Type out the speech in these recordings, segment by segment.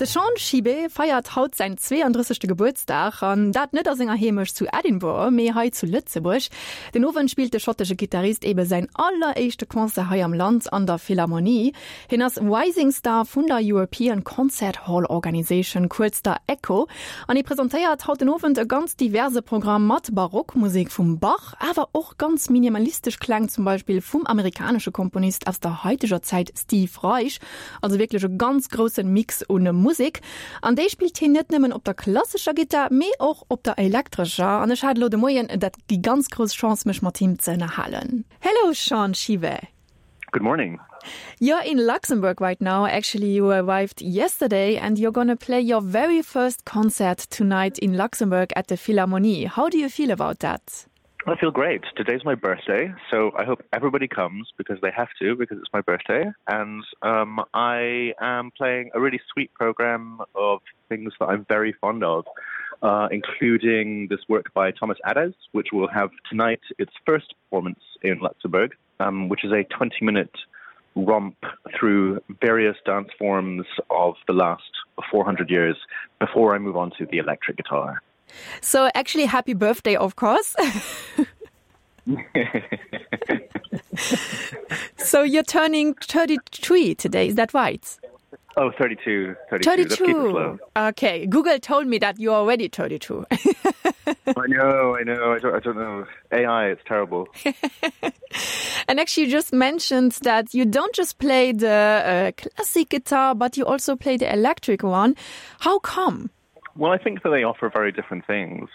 De Sean Shibe feiert haut säin 32. Gebuertsdag, an dat net a senger Heemecht zu Edinburgh, mee hei zu Lëtzebuerg. Den Owend spillt de schottesche Gittarist ebe säin alleréischte Concert hei am Land an der Philharmonie. Hien ass Rising Star vun der European Concert Hall Organisation, kuerz der ECHO, an hie presentéiert haut den Owend e ganz diverse Programm mat Barockmusek vum Bach, awer och ganz minimalistesch Kläng, zum Beispill vum amerikanesche Komponist aus der haiteger Zäit Steve Reich. Also wierklech e ganz groussen Mix un Musek. An déi spillt hien net nëmmen op der klassescher Gittar, mee och op der elektrescher. An ech hat elo de Moien dat déi ganz grouss Chance mech mat him ze ënnerhalen. Hello Sean Shive. Good morning. You're in Luxembourg right now. Actually, you arrived yesterday and you're gonna play your very first concert tonight in Luxembourg at the Philharmonie. How do you feel about that? I feel great. Today's my birthday, so I hope everybody comes because they have to because it's my birthday and um, I am playing a really sweet program of things that I'm very fond of, uh, including this work by Thomas Adès, which will have tonight its first performance in Luxembourg, um, which is a 20 minute romp through various dance forms of the last 400 years before I move on to the electric guitar. So actually happy birthday, of course. so you're turning 33 today, is that right? Oh 32 32, 32. Okay, Google told me that you're already 32. I know, I know I don't, I don't know AI, it's terrible. and actually you just mentioned that you don't just play the uh, classic guitar, but you also play the electric one. How come? Well, I think that they offer very different things.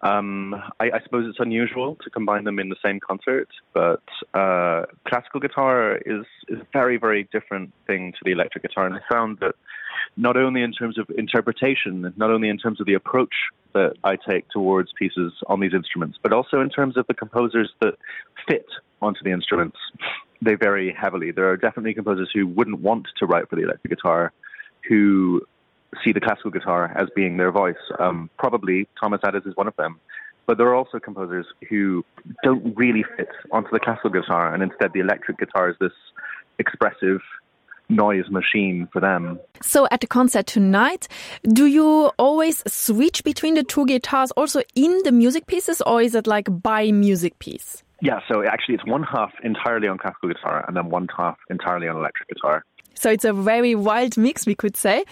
Um, I, I suppose it's unusual to combine them in the same concert, but uh, classical guitar is, is a very, very different thing to the electric guitar. And I found that not only in terms of interpretation, not only in terms of the approach that I take towards pieces on these instruments, but also in terms of the composers that fit onto the instruments, they vary heavily. There are definitely composers who wouldn't want to write for the electric guitar, who see the classical guitar as being their voice. Um, probably Thomas Addis is one of them. But there are also composers who don't really fit onto the classical guitar, and instead the electric guitar is this expressive noise machine for them. So at the concert tonight, do you always switch between the two guitars also in the music pieces or is it like by music piece? Yeah, so actually it's one half entirely on classical guitar and then one half entirely on electric guitar. So it's a very wild mix, we could say.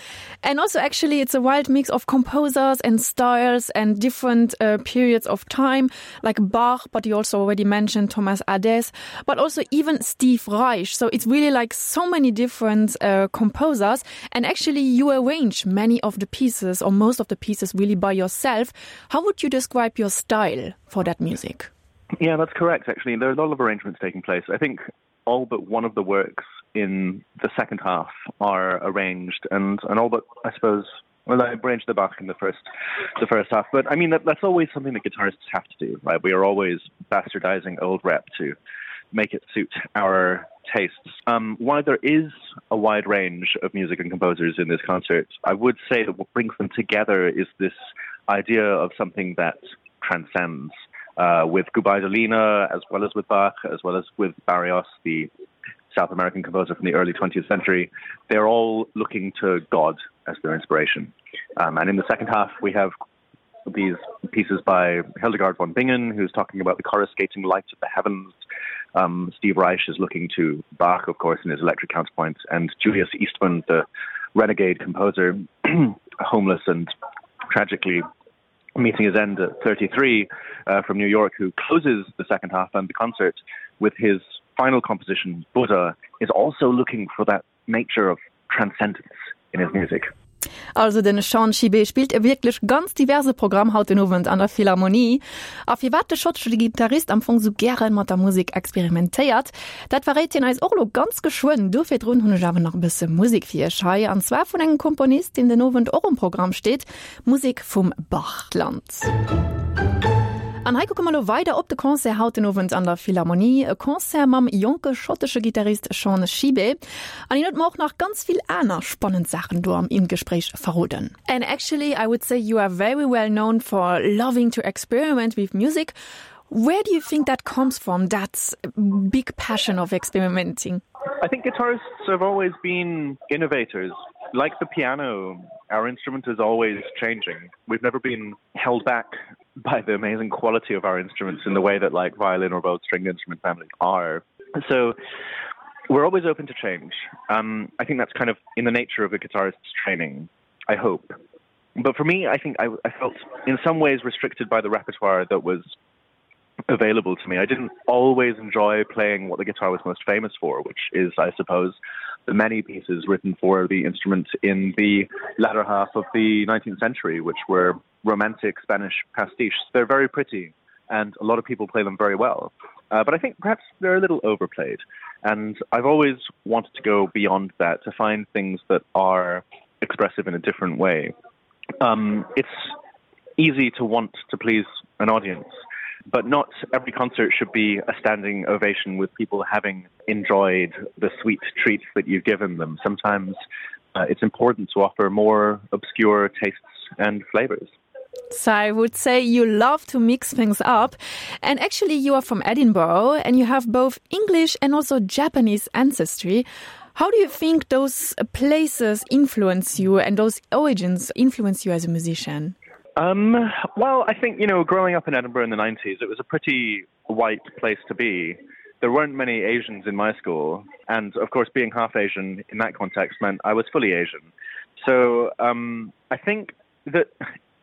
And also actually it's a wild mix of composers and styles and different uh, periods of time, like Bach, but you also already mentioned Thomas Ades, but also even Steve Reich. So it's really like so many different uh, composers. And actually you arrange many of the pieces or most of the pieces really by yourself. How would you describe your style for that music? Yeah, that's correct. Actually, there are a lot of arrangements taking place. I think all but one of the works in the second half are arranged and and all but I suppose well I arranged the Bach in the first the first half but I mean that, that's always something that guitarists have to do right we are always bastardizing old rep to make it suit our tastes um while there is a wide range of music and composers in this concert I would say that what brings them together is this idea of something that transcends uh with Gubaidolina as well as with Bach as well as with Barrios the South American composer from the early 20th century they're all looking to God as their inspiration um and in the second half we have these pieces by Hildegard von Bingen who's talking about the coruscating lights of the heavens um Steve Reich is looking to Bach of course in his electric counterpoint and Julius Eastman the renegade composer homeless and tragically meeting his end at 33 uh, from New York who closes the second half and the concert with his final composition Buddha is also looking for that nature of transcendence in his music. Also den Sean Schibé spillt e wierklech ganz diverse Programm haut den Owend an der Philharmonie. A firwat de schottesche Gittarist am Fong sou gären mat der Musek experimentéiert, dat verréit hien eis och elo ganz geschwënn. Do virdrun hunn ech awer nach e bësse Musek fir iech hei, an zwar vun engem Komponist, deen den Owend och um Programm steet, Musek vum Bachland. An hei kucke mer elo weider op de Concert haut den Owend an der Philharmonie, e Concert mam jonke schottesche Gittarist Sean Shibe. An hien huet mer och nach ganz vill aner spannend Saachen do am Gespréich verroden. And actually I would say you are very well known for loving to experiment with music. Where do you think that comes from, that big passion of experimenting? I think guitarists have always been innovators. Like the piano, our instrument is always changing. We've never been held back by the amazing quality of our instruments in the way that like violin or both stringed instrument families are. So we're always open to change. Um, I think that's kind of in the nature of a guitarist's training, I hope. But for me, I think I, I felt in some ways restricted by the repertoire that was available to me. I didn't always enjoy playing what the guitar was most famous for, which is, I suppose, the many pieces written for the instrument in the latter half of the 19th century, which were romantic Spanish pastiches. They're very pretty, and a lot of people play them very well. Uh, but I think perhaps they're a little overplayed. And I've always wanted to go beyond that to find things that are expressive in a different way. Um, it's easy to want to please an audience, but not every concert should be a standing ovation with people having enjoyed the sweet treats that you've given them. Sometimes uh, it's important to offer more obscure tastes and flavors. So I would say you love to mix things up. And actually you are from Edinburgh and you have both English and also Japanese ancestry. How do you think those places influence you and those origins influence you as a musician? Um, well, I think, you know, growing up in Edinburgh in the 90s, it was a pretty white place to be. There weren't many Asians in my school, and of course, being half Asian in that context meant I was fully Asian. So um, I think that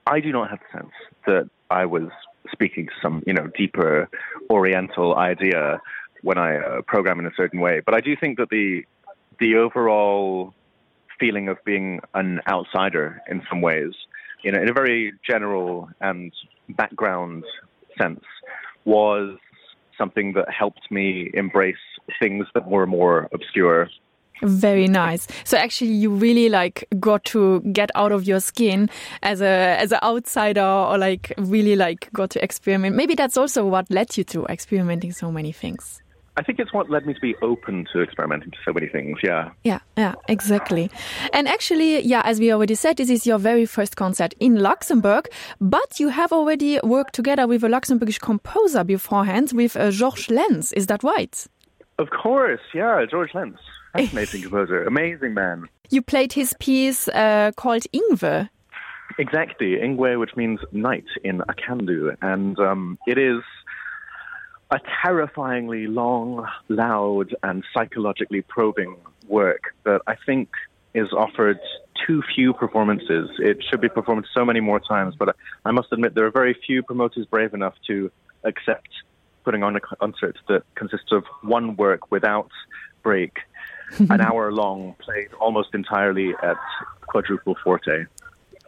I do not have the sense that I was speaking to some, you know, deeper Oriental idea when I uh, program in a certain way. But I do think that the the overall feeling of being an outsider in some ways, you know, in a very general and background sense, was something that helped me embrace things that were more obscure. Very nice. So actually you really like got to get out of your skin as a as an outsider or like really like got to experiment. Maybe that's also what led you to experimenting so many things. I think it's what led me to be open to experimenting to so many things. Yeah. Yeah, yeah, exactly. And actually, yeah, as we already said, this is your very first concert in Luxembourg, but you have already worked together with a Luxembourgish composer beforehand with uh, Georges Lenz. Is that right? Of course, yeah, George Lenz. Fascinating composer, amazing man. You played his piece uh, called Ingwe. Exactly, Ingwe, which means night in Akandu. And um, it is a terrifyingly long, loud and psychologically probing work that I think is offered too few performances. It should be performed so many more times, but I must admit there are very few promoters brave enough to accept putting on a concert that consists of one work without break, an hour long played almost entirely at quadruple forte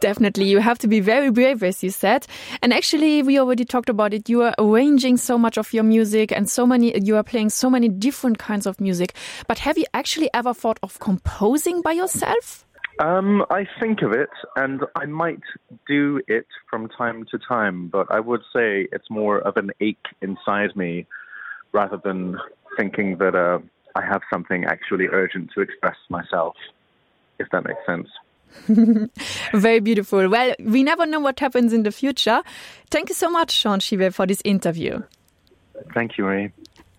definitely you have to be very brave as you said and actually we already talked about it you are arranging so much of your music and so many you are playing so many different kinds of music but have you actually ever thought of composing by yourself um I think of it and I might do it from time to time but I would say it's more of an ache inside me rather than thinking that uh I have something actually urgent to express myself if that makes sense. Very beautiful. Well, we never know what happens in the future. Thank you so much, Sean Shive, for this interview. Thank you, Marie.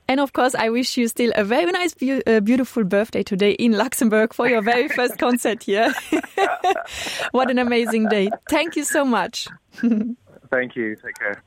And of course, I wish you still a very nice, be uh, beautiful birthday today in Luxembourg for your very first concert here. what an amazing day. Thank you so much. Thank you. Take care.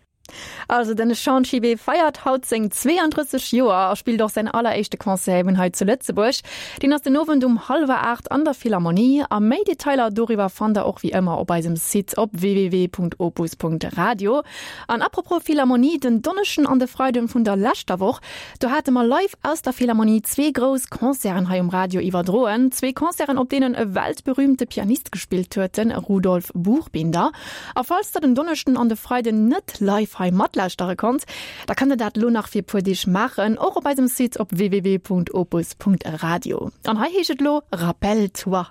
Also den Sean Shibe feiert haut seng 32 Joer a spillt och säin alleréischte Concert eben hei zu Lëtzebuerg. Deen ass den Owend um hallwer 8 an der Philharmonie a méi Detailer doriwwer fannt der och wéi ëmmer op eisem Site op www.opus.radio. An apropos Philharmonie, den Donneschden an de Freiden vun der leschter Woch, do hate mer live aus der Philharmonie zwee grouss Concerten hei um Radio iwwerdroen. Zwee Concerten op deenen e weltberühmte Pianist gespillt huet, den Rudolf Buchbinder. A falls der den Donneschden an de Freiden net live hei matlauschtere konnt, da kënnt der dat lo nach fir puer Deeg maachen, och op eisem Site op www.opus.radio. An hei heescht et lo Rappelle-toi!